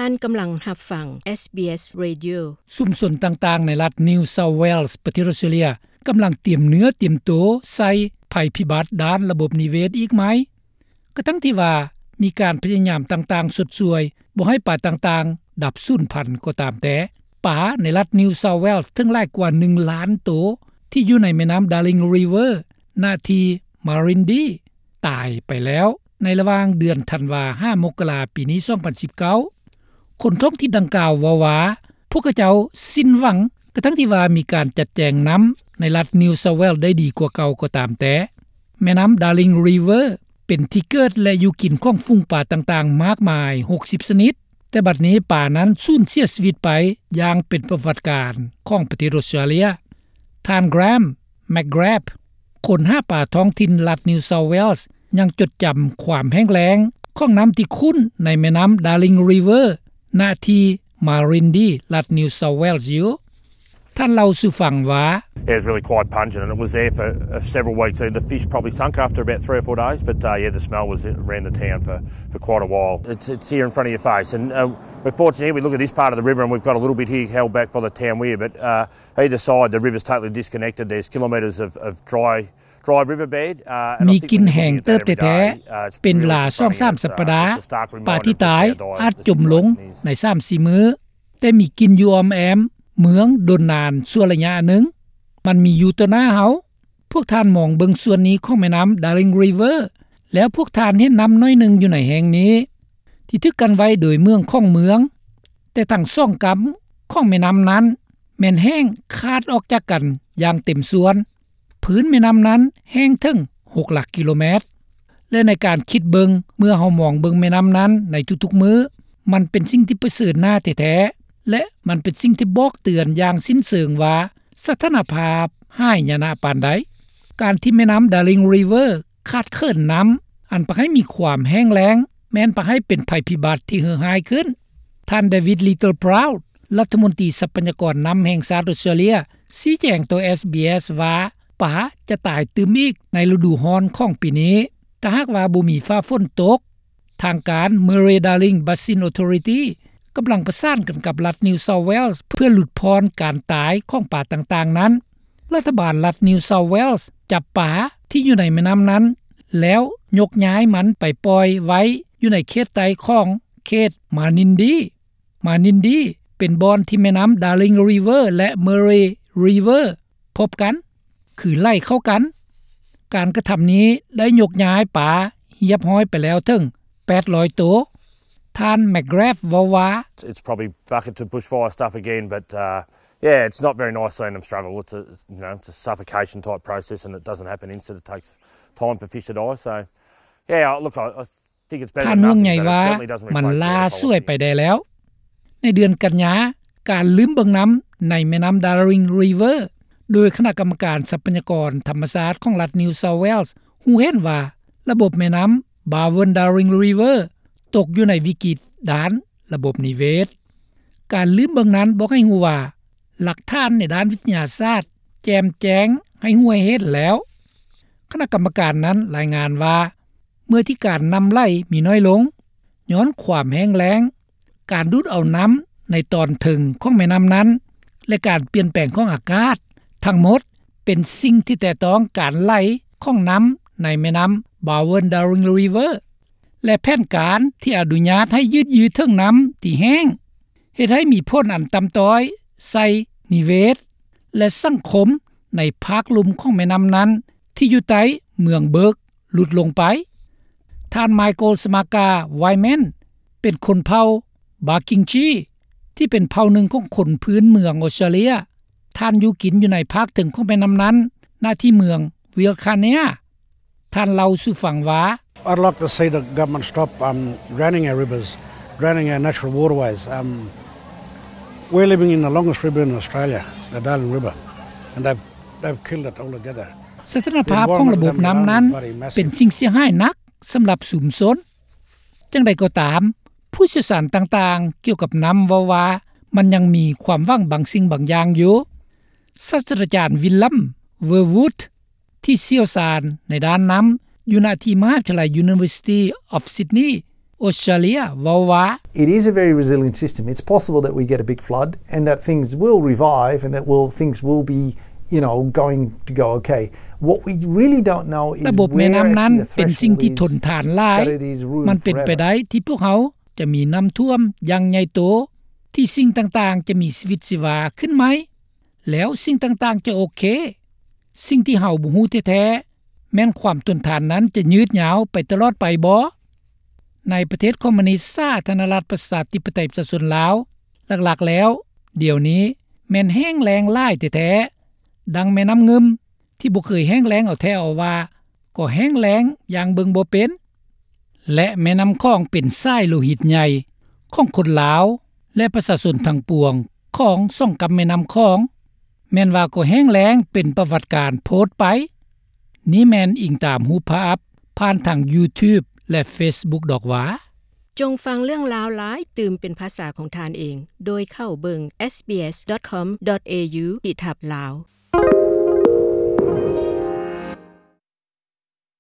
ທ່ານກຳລັງຮັບຟັງ ເອສບີເອສ Radio. ຊຸມຊົນຕ່າງໆໃນລັດ New South Wales ປະເທດອອສເຕຣເລັຍ ກຳລັງຕຽມເນື້ອຕຽມໂຕໃສ່ໄພພິບັດດ້ານລະບົບນິເວດອີກໃໝ່. ກະທັງທີ່ວ່າມີການພະຍາຍາມຕ່າງໆຊົດຊ່ວຍບໍ່ໃຫ້ປາຕ່າງໆດັບສູນພັນກໍຕາມແຕ່, ປາໃນລັດ New South Wales ເຖິງຫຼາຍກວ່າໜຶ່ງລ້ານໂຕ ທີ່ຢູ່ໃນແມ່ນ້ຳ Darling River ນະທີ່ Marindy ຕາຍໄປແລ້ວໃນລະຫວ່າງເດືອນທັນວາຫາມົກກະລາປີນີ້ ສອງພັນສິບເກົ້າ. ຄົນທ້ອງຖິ່ນດັ່ງກ່າວເວົ້າວ່າ ພວກເຂົາເຈົ້າສິ້ນຫວັງ ກະທັງທີ່ວ່າມີການຈັດແຈງນ້ຳໃນລັດ New South Wales ໄດ້ດີກວ່າເກົ່າກໍຕາມແຕ່. ແມ່ນ້ຳ Darling River ເປັນທີ່ເກີດ ແລະ ຢູ່ກິນຂອງຝູງປາຕ່າງໆມາກມາຍ ຫົກສິບຊະນິດ, ແຕ່ບັດນີ້ປານັ້ນສູນເສຍຊີວິດໄປຢ່າງເປັນປະຫວັດການຂອງປະເທດອອສເຕຣເລັຍ. ທ່ານ Graham McGrath ຄົນຫາປາທ້ອງຖິ່ນລັດ New South Wales ຍັງຈົດຈຳຄວາມແຫ້ງແລ້ງຂອງນ້ຳທີ່ຂຸ້ນໃນແມ່ນ້ຳ Darling River ນະທີ່ Marindy ລັດ New South Wales ຢູ່. ທ່ານເລົ່າສູ່ຟັງວ່າ Yeah, it was really quite pungent and it was there for, uh, several weeks. So the fish probably sunk after about three or four days, but, uh, yeah, the smell was around the town for, for quite a while. It's, it's here in front of your face, and, uh, we're fortunate here. We look at this part of the river and we've got a little bit here held back by the town weir, but, uh, either side, the river's totally disconnected. There's kilometres of, of dry, dry riverbed, uh, and ມີກິ່ນແຮງເຕີບແທ້ໆ ເປັນເວລາສອງສາມສັບປະດາ ປາທີ່ຕາຍອາດຈົມລົງໃນສາມສີ່ມື້, ແຕ່ມີກິ່ນຢູ່ອ້ອມແອ້ມເມືອງດົນນານຊົ່ວໄລຍະໜຶ່ງ. ມັນມີຢູ່ຕໍ່ໜ້າເຮົາ. ພວກທ່ານມອງເບິ່ງສ່ວນນີ້ຂອງແມ່ນ້ຳ Darling River ແລ້ວພວກທ່ານເຫັນນ້ຳໜ້ອຍໜຶ່ງຢູ່ໃນແຫ່ງນີ້ ທີ່ຖືກກັ້ນໄວ້ໂດຍເມືອງຂອງເມືອງ, ແຕ່ທັງສອງກຳຂອງແມ່ນ້ຳນັ້ນແມ່ນແຫ້ງຂາດອອກຈາກກັນຢ່າງເຕັມສ່ວນ. ພື້ນແມ່ນ້ຳນັ້ນແຫ້ງເຖິງຫົກຫຼັກກິໂລແມັດ ແລະ ໃນການຄິດເບິ່ງ ເມື່ອເຮົາມອງເບິ່ງແມ່ນ້ຳນັ້ນໃນທຸກໆມື້, ມັນເປັນສິ່ງທີ່ປະເຊີນໜ້າແທ້ໆ ແລະ ມັນເປັນສິ່ງທີ່ບອກເຕືອນຢ່າງສິ້ນເຊີງວ່າ ສະຖານະພາບຮ້າຍຍານະປານໃດ. ການທີ່ແມ່ນ້ຳ Darling River ຂາດເຂີນນ້ຳ ອັນພາໃຫ້ມີຄວາມແຫ້ງແລ້ງ ແມ່ນພາໃຫ້ເປັນໄພພິບັດທີ່ເຫື່ອຮ້າຍຂຶ້ນ. ທ່ານ David Littleproud ລັດຖະມົນຕີຊັບພະຍາກອນນ້ຳແຫ່ງຊາດອອສເຕຣເລັຍ ຊີ້ແຈງຕໍ່ ເອສບີເອສ ວ່າ ປາຈະຕາຍຕື່ມອີກໃນລະດູຮ້ອນຂອງປີນີ້ ຖ້າຫາກວ່າບໍ່ມີຟ້າຝົນຕົກ. ທາງການ Murray-Darling Basin Authority ກຳລັງປະສານກັນກັບລັດ New South Wales ເພື່ອຫຼຸດຜ່ອນການຕາຍຂອງປາຕ່າງໆນັ້ນ. ລັດຖະບານລັດ New South Wales ຈັບປາທີ່ຢູ່ໃນແມ່ນ້ຳນັ້ນ ແລ້ວຍົກຍ້າຍມັນໄປປ່ອຍໄວ້ຢູ່ໃນເຂດໃຕ້ຂອງເຂດ Manindy. Manindy ເປັນບ່ອນທີ່ແມ່ນ້ຳ Darling River ແລະ Murray River ພົບກັນ ຄືໄຫຼເຂົ້າກັນ. ການກະທຳນີ້ໄດ້ຍົກຍ້າຍປາຮຽບຮ້ອຍໄປແລ້ວເຖິງແປດຮ້ອຍໂຕ. ທ່ານ McGrath ເວົ້າວ່າ It's probably bucket to bushfire stuff again, but, uh, yeah, it's not very nice seeing them struggle. It's a, you know, it's a suffocation type process and it doesn't happen instant. It takes time for fish to die. So, yeah, look, I, I ທ່ານຫ່ວງໃຍວ່າ ມັນຫຼ້າສວຍໄປແດ່ແລ້ວ. ໃນເດືອນກັນຍາ, ການລືມເບິ່ງນ້ຳໃນແມ່ນ້ຳ Darling River ໂດຍຄະນະກຳມະການຊັບພະຍາກອນທຳມະຊາດຂອງລັດ New South Wales ຮູ້ເຫັນວ່າ ລະບົບແມ່ນ້ຳ Barwon-Darling River ຕົກຢູ່ໃນວິກິດດ້ານລະບົບນິເວດ. ການລືມເບິ່ງນັ້ນບອກໃຫ້ຮູ້ວ່າ ຫຼັກຖານໃນດ້ານວິທະຍາສາດແຈ່ມແຈ້ງໃຫ້ຮູ້ໃຫ້ເຫັນແລ້ວ. ຄະນະກຳມະການນັ້ນລາຍງານວ່າ ເມື່ອທີ່ການນ້ຳໄຫຼມີນ້ອຍລົງ ຍ້ອນຄວາມແຫ້ງແລ້ງ, ການດູດເອົານ້ຳໃນຕອນເທິງຂອງແມ່ນ້ຳນັ້ນ ແລະ ການປ່ຽນແປງຂອງອາກາດ, ທັງໝົດເປັນສິ່ງທີ່ແຕະຕ້ອງການໄຫຼຂອງນ້ຳໃນແມ່ນ້ຳ Barwon-Darling River ແລະ ແຜນການທີ່ອະນຸຍາດໃຫ້ຢືດເຖິງນ້ຳທີ່ແຫ້ງ ເຮັດໃຫ້ມີຜົນອັນຕ່ຳຕ້ອຍໃສ່ນິເວດ ແລະ ສັງຄົມໃນພາກລຸ່ມຂອງແມ່ນ້ຳນັ້ນ ທີ່ຢູ່ໃຕ້ເມືອງເບີກ ຫຼຸດລົງໄປ. ທ່ານ Michael Smaka Wyman ເປັນຄົນເຜົ່າ Barkindji ທີ່ເປັນເຜົ່າໜຶ່ງຂອງຄົນພື້ນເມືອງອອສເຕຣເລັຍ. ທ່ານຢູ່ກິນຢູ່ໃນພາກເທິງຂອງແມ່ນ້ຳນັ້ນ ນະທີ່ເມືອງ Wilcannia. ທ່ານເລົ່າສູ່ຟັງວ່າ I'd like to see the government stop, um, drowning our rivers, drowning our natural waterways. Um, we're living in the longest river in Australia, the Darling River, and they've, they've killed it altogether. ສະຖານະພາບຂອງລະບົບນ້ຳນັ້ນເປັນສິ່ງເສຍຫາຍໜັກສຳລັບຊຸມຊົນ. ຈັ່ງໃດກໍຕາມ, ຜູ້ຊ່ຽວຊານຕ່າງໆກ່ຽວກັບນ້ຳເວົ້າວ່າ ມັນຍັງມີຄວາມຫວັງບາງສິ່ງບາງຢ່າງຢູ່. ສາດສະດາຈານ Willem Verwoerd ທີ່ຊ່ຽວຊານໃນດ້ານນ້ຳ ຢູ່ນະທີ່ມະຫາວິທະຍາໄລ University of Sydney Australia ເວົ້າວ່າ It is a very resilient system. It's possible that we get a big flood and that things will revive and that will, things will be, you know, going to go okay. What we really don't know is ລະບົບແມ່ນ້ຳນັ້ນເປັນສິ່ງທີ່ທົນທານຫຼາຍ. ມັນເປັນໄປໄດ້ທີ່ພວກເຮົາຈະມີນ້ຳຖ້ວມຢ່າງໃຫຍ່ໂຕ ທີ່ສິ່ງຕ່າງໆຈະມີຊີວິດຊີວາຂຶ້ນໃໝ່ ແລ້ວສິ່ງຕ່າງໆຈະໂອເຄ. ສິ່ງທີ່ເຮົາບໍ່ຮູ້ແທ້ໆ ແມ່ນຄວາມທົນທານນັ້ນຈະຍືດຍາວໄປຕະຫຼອດໄປບໍ? ໃນປະເທດຄອມມູນິດສາທາລະນະລັດປະຊາທິປະໄຕປະຊາຊົນລາວ ຫຼັກໆແລ້ວ ດຽວນີ້ແມ່ນແຫ້ງແລ້ງຫຼາຍແທ້ໆ. ດັ່ງແມ່ນ້ຳງື່ມທີ່ບໍ່ເຄີຍແຫ້ງແລ້ງເອົາແທ້ເອົາວ່າ ກໍແຫ້ງແລ້ງຢ່າງເບິ່ງບໍ່ເປັນ. ແລະ ແມ່ນ້ຳຂອງເປັນສາຍໂລຫິດໃຫຍ່ຂອງຄົນລາວ ແລະ ປະຊາຊົນທັງປວງຂອງສອງກຳແມ່ນ້ຳຂອງ ແມ່ນວ່າກໍແຫ້ງແລ້ງເປັນປະຫວັດການໂພດໄປ. ນີ້ແມ່ນອີງຕາມຮູບພາບຜ່ານທາງ YouTube ແລະ Facebook ດອກຫວາ. ຈົ່ງຟັງເລື່ອງລາວຫຼາຍຕື່ມເປັນພາສາຂອງທ່ານເອງ ໂດຍເຂົ້າເບິ່ງ SBS.com.au ຂີດທັບ Lao.